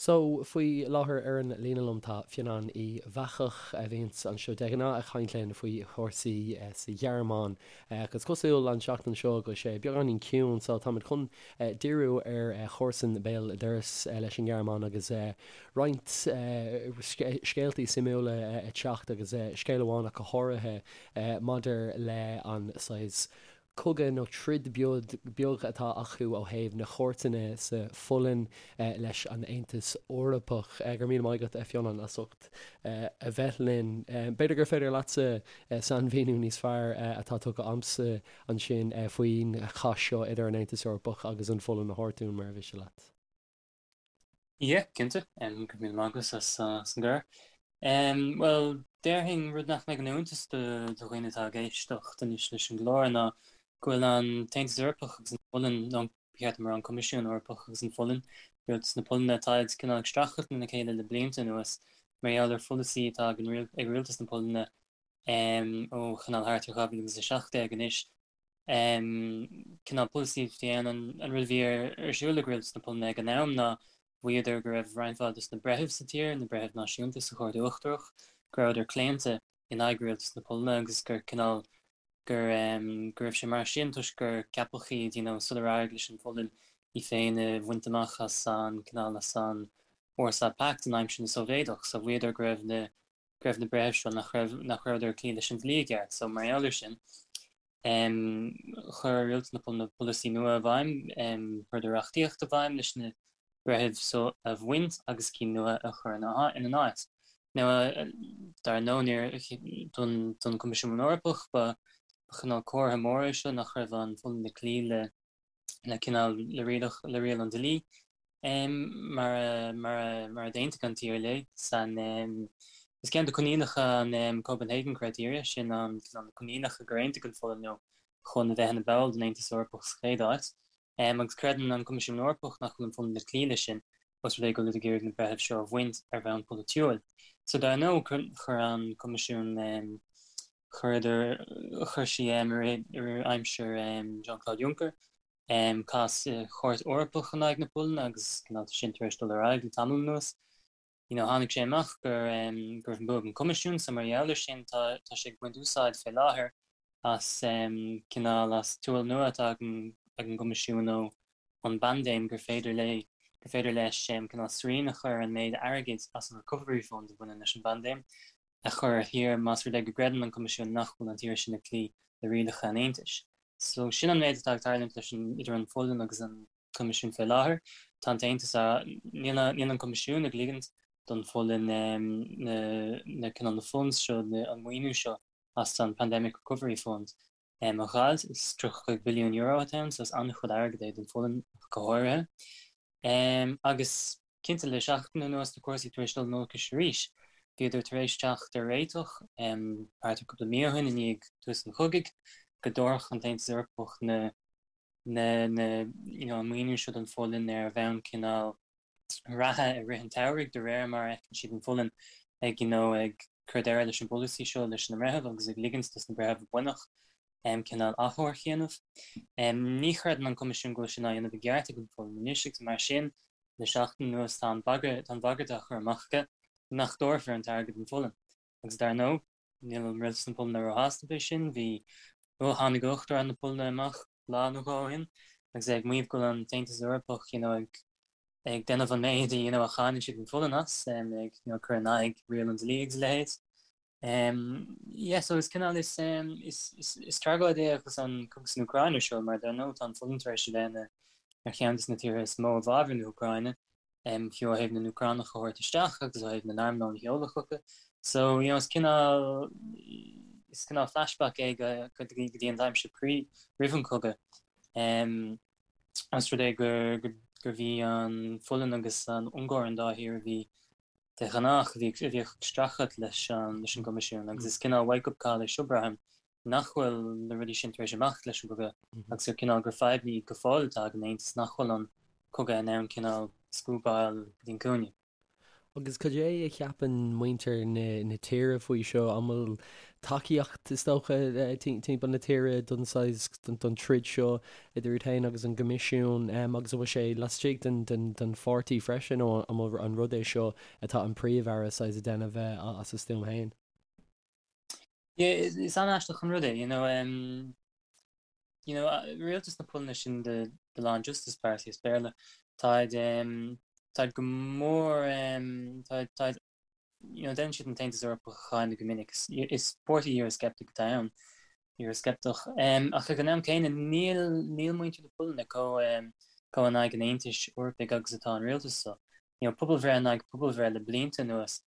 So, faoi láthair ar an líne liom tá Fionnán Uí Bheachach, a bhíonns anseo de ghnáth ag caint linn faoi chúrsaí sa Ghearmáin. Ach is cosúil an tseachtain seo go bhfuil sé beagáinín ciúin, so táimid chun díriú ar chomharsain béal dorais leis an nGearmáin agus roinnt scéaltaí suimiúla ag teacht agus scéal amháin ach go háirithe maidir le an saghas cogadh nó troid beag atá acu ó thaobh na cúirteanna sa Pholainn leis an Aontas Eorpach. Go raibh míle maith agat, a Fhionnán, as ucht a bheith linn. B'fhéidir gur féidir leatsa sainmhíniú níos fearr atá tugtha a'msa ansin faoin chath seo idir an Aontas Eorpach agus an Pholainn a thabhairt dúinn, mura mhiste leat. Yeah, cinnte. Go raibh míle maith agat as an gcuireadh. Bhuel, déarfainn rud nach mbeidh ina iontas do dhaoine atá ag éisteacht anois leis an gclár ná go bhfuil an tAontas Eorpach agus an Pholainn, nó ba cheart dom a rá an Coimisiún Eorpach agus an Pholainn, rialtas na Polainne, táid cineál ag streachailt lena chéile le blianta anuas mar gheall ar pholasaí atá ag rialtas na Polainne ó chineál thart ar 2017 anois. Cineál polasaí a bhí ann, an rud a bhí ar siúl ag rialtas na Polainne ag an am ná mhaíodar go raibh roinnt mhaith dos na breithimh sa tír, na breithimh náisiúnta sa Chúirt Uachtarach, go rabhadar claonta in aghaidh rialtas na Polainne agus gur cineál gur go raibh sé mar sin toisc gur ceapadh iad you know sular éirigh leis an Pholainn í féin a bhaint amach as an cineál as an Warsaw Pact in aimsir na Sóivéadach. So mhaíodar go raibh na go raibh na breithimh seo nach raibh nach rabhadar ag cloí leis an dlí i gceart. So mar gheall air sin, chuir rialtas na Polainne polasaí nua i bhfeidhm, chuireadar reachtaíocht i bhfeidhm leis na breithimh so a bhaint agus cinn nua a chur ina n-áit. Now, dar ndóigh, níor, don don Coimisiún Eorpach ba chineál comhartha mór é seo nach raibh an Pholainn ag cloí le le cineál le rialach le riail an dlí mar a mar a mar a d'aontaigh an tír léi san is ceann de coinníollacha an Copenhagen Criteria sin an cineál na coinníollacha gur aontaigh an Pholainn leo chun a bheith ina ball den Aontas Eorpach sa chéad áit agus creideann an Coimisiún Eorpach nach bhfuil an Pholainn ag cloí leis sin os rud é go bhfuil ag iarraidh na breithimh seo a bhaint ar bhonn polaitiúil. So dar ndóigh chuir an Coimisiún Chuireadar, chuir sí i rith aimsir Jean-Claude Juncker, cás sa Chúirt Eorpach in aghaidh na Polainne agus cineál tá sin tar éis dul ar aghaidh le tamall anuas. You know, tháinig sé amach gur go raibh an bua ag an Coimisiún so mar gheall air sin tá tá sé ag baint úsáid fé láthair as cineál as tool nua atá ag an ag an gCoimisiún ó ón bpaindéim gur féidir léi gur féidir leis cineál srian a chur ar an méid airgid as an Recovery Fund a bhaineann leis an bpaindéim. a chur ar thír más rud é go gcreideann an Coimisiún nach bhfuil an tír sin ag cloí le rialacha an Aontais. So sin an méid atá ag tarlúint leis an idir an Pholainn agus an Coimisiún fé láthair. Tá an tAontas á níl níl an Coimisiún ag ligint don Pholainn na na cineál na funds seo na an maoiniú seo as an Pandemic Recovery Fund a dh'fháil. Is €35 billiún atá ann so is an-chuid airgid é don Pholainn ach go háirithe. Agus cinnte le seachtain anuas tá cúrsaí tar éis dul in olcais arís. Bhíodar tar éis teacht ar réiteach thart ar cúpla mí ó shin i ndiaidh tús an chogaidh go dtabharfadh an tAontas Eorpach na na na you know an maoiniú seo don Pholainn ar bhonn cineál reatha i rith an tsamhraidh de réir mar a fheiceann siad an Pholainn ag you know ag cur deireadh leis an bpolasaí seo leis na mbreitheamh agus ag ligint dos na breithimh a baineadh cineál achomharc a dhéanamh. Ní chreideann an Coimisiún go bhfuil sin á dhéanamh i gceart ag an Pholainn anois agus mar sin le seachtain anuas tá an bagairt tá an bhagairt á chur amach aige nach dtabharfar an t-airgead don Pholainn. Agus dar ndóigh níl rialtas na Polainne róshásta fé sin, bhí ó tháinig Uachtarán na Polainne amach lá nó dhó ó shin agus é ag maíomh go bhfuil an tAontas Eorpach you know ag ag déanamh an méid you know a cháineann siad an Pholainn as, ag you know cur in aghaidh riail an dlí agus a leithéid. Yeah, so is cineál is is is is tragóid é agus an cogadh san Úcráin ar siúl mar dar ndóigh tá an Pholainn tar éis a bheith ina ar cheann de na tíortha is mó i bhfabhar na hÚcráine, fiú ó thaobh na nÚcránach a thabhairt isteach agus ó thaobh na n-armlón a sheoladh chucu. So, you know, is cineál is cineál flashback é go go dtí go dtí an aimsir pre roimh an cogadh. Os rud é gur gur gur bhí an Pholainn agus an Ungáir an dá thír a bhí de ghnách, a bhí a bhíodh ag streachailt leis an leis an gCoimisiún agus is cineál wake up call é seo braithim nach bhfuil na rudaí sin tar éis imeacht leis an gcogadh agus gur cineál gur fadhb í go fóill atá ag an Aontas nach bhfuil an cogadh in ann cineál scuabáil go dtí an cúinne. Agus cad é a cheapann muintir na tíre faoi seo? An bhfuil tacaíocht, is dócha, timpeall na tíre don saghas, don troid seo idir iad féin agus an gCoimisiún? Agus an bhfuil sé laistigh den pháirtí freisin nó an bhfuil an rud é seo atá an Príomh-Aire saghas ag déanamh as a stuaim féin? Yeah, is an-aisteach an rud é, you know, you know, rialtas na Polainne sin the, the Law and Justice Party as Béarla, táid, táid go mór, táid, táid, you know, déanann siad an tAontas Eorpach a cháineadh go minic, is, is páirtí Eurosceptic atá ann, Eurosceptach, ach ag an am céanna níl, níl muintir na Polainne chomh, chomh in aghaidh an Aontais Eorpaigh agus atá an rialtas seo. You know, pobalbhreith in aghaidh pobalbhreith le blianta anuas,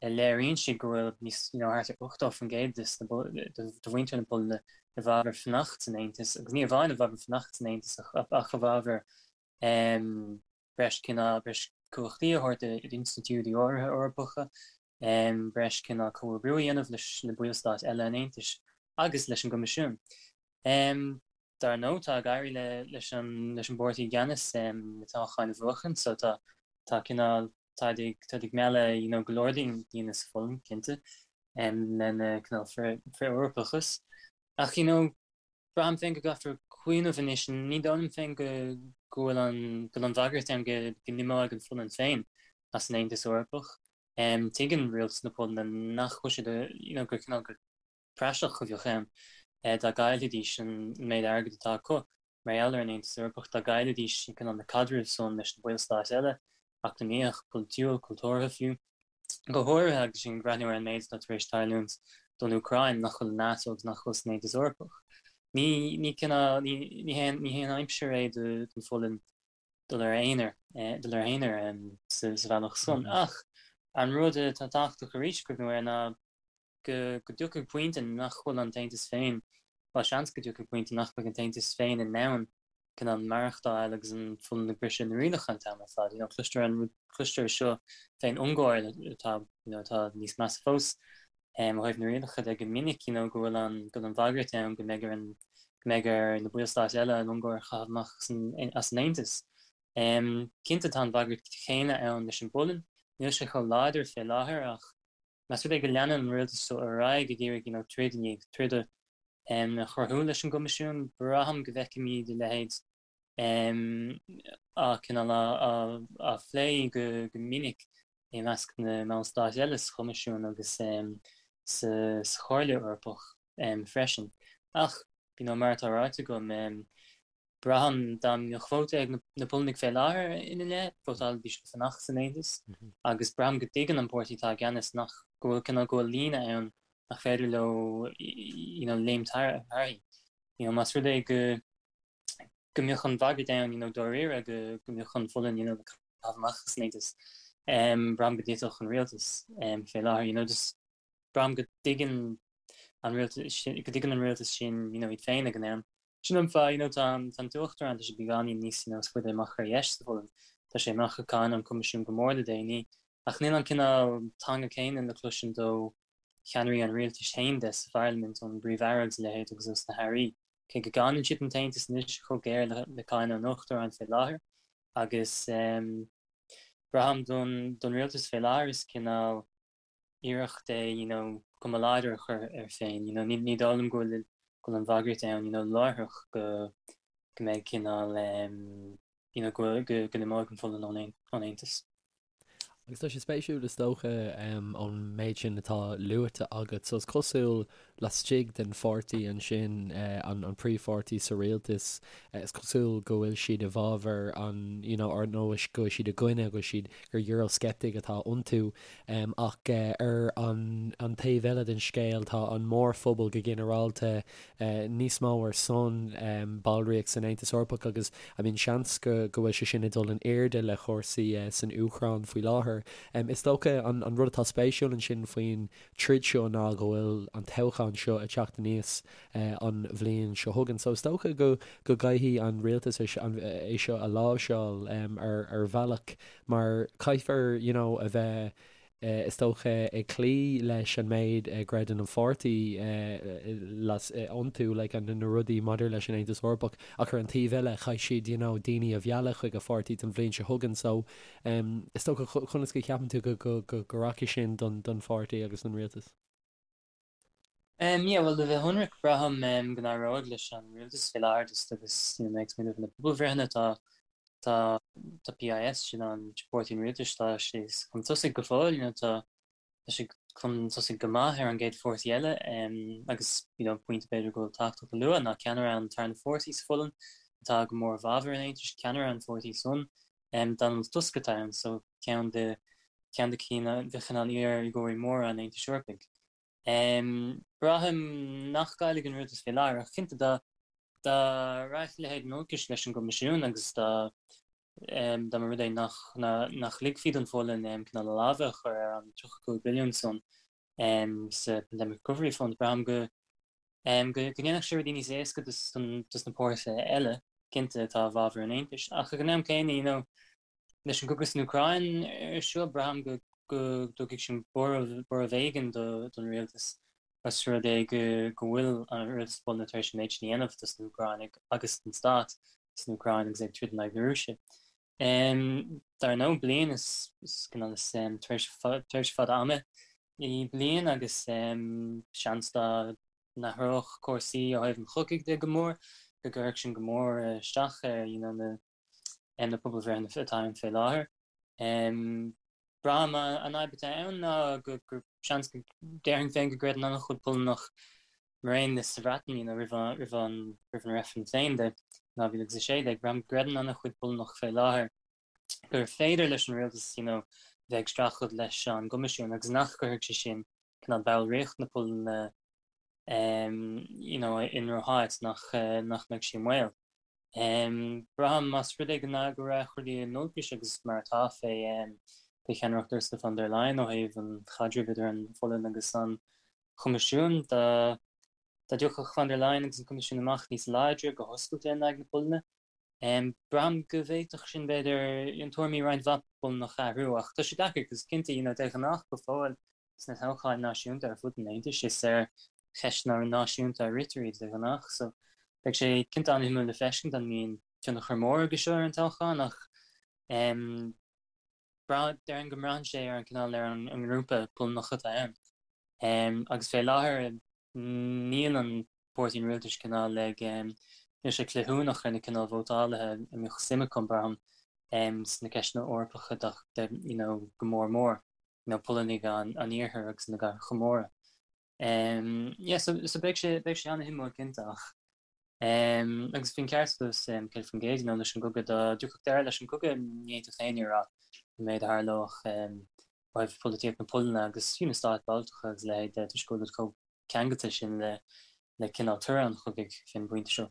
léiríonn siad go bhfuil níos, you know, thart ar 80% de mhuintir na Polainne i bhfabhar fanacht san Aontas, agus ní amháin i bhfabhar fanacht san Aontas ach i bhfabhar breis cineál, breis cumhachtaí a thabhairt d'institiúidí áirithe Eorpacha, breis cineál comhoibriú a dhéanamh leis na ballstáit eile an Aontais agus leis an gCoimisiún. Dar ndóigh, tá ag éirí leis an leis an bpáirtí i gceannas na toghcháin a bhuachan, so tá tá cineál táid ag táid ag mealladh you know go leor daoine sa Pholainn, cinnte, lena cineál frith-Eorpachas. Ach you know, braithim féin go gcaithfear cuimhneamh anois, ní dóigh liom féin go go bhfuil an go bhfuil an bhagairt ann go go n-imeoidh an Pholainn féin as an Aontas Eorpach. Tuigeann rialtas na Polainne nach bhfuil siad you know gur cineál gur praiseach a bheadh ann dá gcaillfidís an méid airgid atá acu mar gheall ar an Aontas Eorpach, dá gcaillfidís cineál na caidrimh san leis na ballstáit eile, eacnamaíoch, polaitiúil, cultúrtha fiú. Go háirithe agus sinn ag breathnú ar an méid atá tar éis tarlúint don Úcráin, nach bhfuil i NATO agus nach bhfuil san Aontas Eorpach. Ní, ní cineál, ní, ní haon, ní haon aimsir é don Pholainn dul ar a aonar, dul ar a haonar sa, sa bhealach san. Ach an rud atá tábhachtach arís cuimhniú air ná go dtiocfaidh pointe nach bhfuil an tAontas féin, bhuel, seans go dtiocfaidh pointe nach mbeidh an tAontas féin in ann cineál maireachtáil agus an Pholainn ag briseadh na rialacha an t-am ar fad. You know, cloistear an rud, cloistear seo fén Ungáir atá, you know, atá níos measa fós ó thaobh na rialacha de go minic, you know, go bhfuil an, go bhfuil an bhagairt ann go mbeidh ar an, go mbeidh ar na ballstáit eile an Ungáir a chaitheamh amach as an Aontas. Cinnte tá an bhagairt chéanna ann leis an bPolainn, níl sé chomh láidir fé láthair ach Más rud é go leanann an rialtas seo ar aghaidh ag iarraidh you know troid i ndiaidh troda a chruthú leis an gCoimisiún, braithim go bhfeicfimid a leithéid á cineál á phlé go minic i measc na mballstát eile sa Choimisiún agus sa Chomhairle Eorpach freisin. Ach, you know, mar atá ráite agam, Braithim dá mbeadh vóta ag na Polannaigh fé láthair ina leith, vótálfaidís le fanacht san Aontas agus braithim go dtuigeann an páirtí atá i gceannas nach go bhfuil cineál go bhfuil líne ann nach féidir leo you know léimt thairthi. You know más rud é go go mbeadh an bhagairt ann you know dáiríre go go mbeadh an Pholainn you know le caitheamh amach as an Aontas, braithim go dtitfeadh an rialtas fé láthair you know just braithim go dtuigeann an rialtas sin go dtuigeann an rialtas sin you know iad féin ag an am. Sin an fáth you know tá an tá an tUachtarán tá sé beagáinín níos you know is faide amach ar dheis sa Pholainn. Tá sé amach ag cáineadh an Coimisiún go mór le déanaí ach níl an cineál teanga céanna le cloisint ó cheannairí an rialtais féin de sa pharlaimint ón bPríomh-Aire agus a leithéid agus ós na hairí. Cé go gcáineann siad an tAontas anois chomh géar le le cáineadh an Uachtaráin fé láthair agus ehm braithim don don rialtas fé láthair is cineál iarracht é you know cuma láidir a chur air féin you know ní ní dóigh liom go bhfuil go bhfuil an bhagairt ann you know láithreach go go mbeidh cineál em you know go go go n-imeoidh an Pholainn ón ón Aontas. Agus tá sé spéisiúil is dócha em ón méid sin atá luaite agat so is cosúil laistigh den pháirtí ansin eh an an príomhpháirtí sa rialtas eh is cosúil go bhfuil siad i bhfabhar an you know or nó go bhfuil siad i gcoinne go bhfuil siad gur Eurosceptic atá iontu Ach ar an taobh eile den scéal, tá an mórphobal go ginearálta níos mó ar son ballraíocht san Aontas Eorpach agus I mean seans go bhfuil sé sin ag dul in airde le cúrsaí san Úcráin faoi láthair. Is dócha an rud atá spéisiúil ansin faoin troid seo ná go bhfuil an toghchán seo ag teacht aníos an bhliain seo chugainn. So is dócha go gcaithfidh an rialtas é seo a láimhseáil ar bhealach mar caithfear you know a bheith. Is dócha ag cloí leis an méid a gcreideann an pháirtí iontu, like na rudaí maidir leis an Aontas Eorpach, ach ar an taobh eile chaithfidh siad you know daoine a mhealladh chuig a pháirtí don bhliain seo chugainn so is dócha conas go cheapann tú go go rachaidh sin don don pháirtí agus don rialtas? Um yeah bhuel le bheith ionraic braithim go n-éireoidh leis an rialtas fé láthair just agus you know mé ag smaoineamh ar na pobalbhreitheanna tá tá tá PIS sin an páirtí an rialtais tá sé chun tosaigh go fóill you know tá tá sé chun tosaigh go maith ar an gcéad pháirtí eile um agus you know pointe b'fhéidir go bhfuil tábhachtach a lua ná ceannaire an tarna pháirtí sa Pholainn atá go mór i bhfabhar an Aontais ceannaire an pháirtí san um Donald Tusk atá ann so ceann de ceann de cinn de chineál iar-urraitheoirí móra an Aontais Eorpaigh. Braithim nach gcaillfidh an rialtas fé láthair, ach cinnte dá dá rachadh a leithéid in olcais leis an gCoimisiún agus dá dá mba rud é nach nach ligfí don Pholainn cineál a lámha a chur ar an 35 billiún san sa Pandemic Recovery Fund, braithim go go go ndéanfadh sé rudaí níos éasca dos dos na páirtithe eile, cinnte, atá i bhfabhar an Aontais. Ach ag an am céanna, you know, Leis an gcogadh san Úcráin ar siúl, braithim go dtabharfaidh sin borradh éigin don rialtas os rud é go bhfuil an rialtas Polainne tar éis an méid sin a dhéanamh dos na hÚcránaigh agus don stát san Úcráin agus é ag troid in aghaidh na Rúise. Dar ndóigh, bliain is tréimhse fada ama í bliain agus seans dá n-athródh cúrsaí ó thaobh an chogaidh de go mór go gcuirfeadh sin go mór isteach ar na na pobalbhreitheanna atá ann fé láthair. Braithim an fhadhb atá ann ná gur seans go déarfainn féin go gcreideann an-chuid Polannach mar aon le sa Bhreatain you know roimh an roimh an roimh an reifreann féin de 2016, braithim go gcreideann an-chuid Polannach fé láthair gur féidir leis an rialtas you know bheith ag streachailt leis an gCoimisiún agus nach gcuirfidh sé sin cineál ballraíocht na Polainne you know i ndrocháit nach nach mbeidh sí i mbaol. Braithim, más rud é go rachaidh rudaí in olcais agus mar atá fé cheannaireacht Ursula von der Leyen ó thaobh an chaidrimh idir an Pholainn agus an Choimisiún, dá dtiocfadh von der Leyen agus an Coimisiún amach níos láidre go hoscailte in aghaidh na Polainne, braithim go bhféadfadh sin, b'fhéidir, tuairimí roinnt mhaith Polannach a athrú. Ach tá sé deacair, cos cinnte, you know, de ghnáth go fóill, sna toghcháin náisiúnta ar fud an Aontais, is ar cheisteanna náisiúnta a ritear iad de ghnáth, so beidh sé cinnte an-shuimiúil le feiscint an mbíonn tionchar mór aige seo ar an toghchán ach déarfainn go mbraitheann sé ar an cineál ar an ngrúpa Polannach atá ann agus fé láthair níl an páirtí an rialtais cineál ag níl sé cleithiúnach ar na cineál vótálaithe a mbeadh suim acu braithim sna ceisteanna Eorpacha de you know go mór mór. you know, Polannaigh an iarthair agus na gcathracha móra. Yeah, so, so beidh sé, beidh sé an-shuimiúil cinnte ach um, agus bhí an ceart agat 100% you know, leis an gcogadh dá dtiocfadh deireadh leis an gcogadh ní fhéadfadh éinne a rá an méid a tharlódh um, ó thaobh polaitíocht na Polainne agus fiú na stáit Bhaltacha agus a leithéid de toisc go bhfuil chomh ceangailte sin le le cineál toradh an chogaidh fén bpointe seo.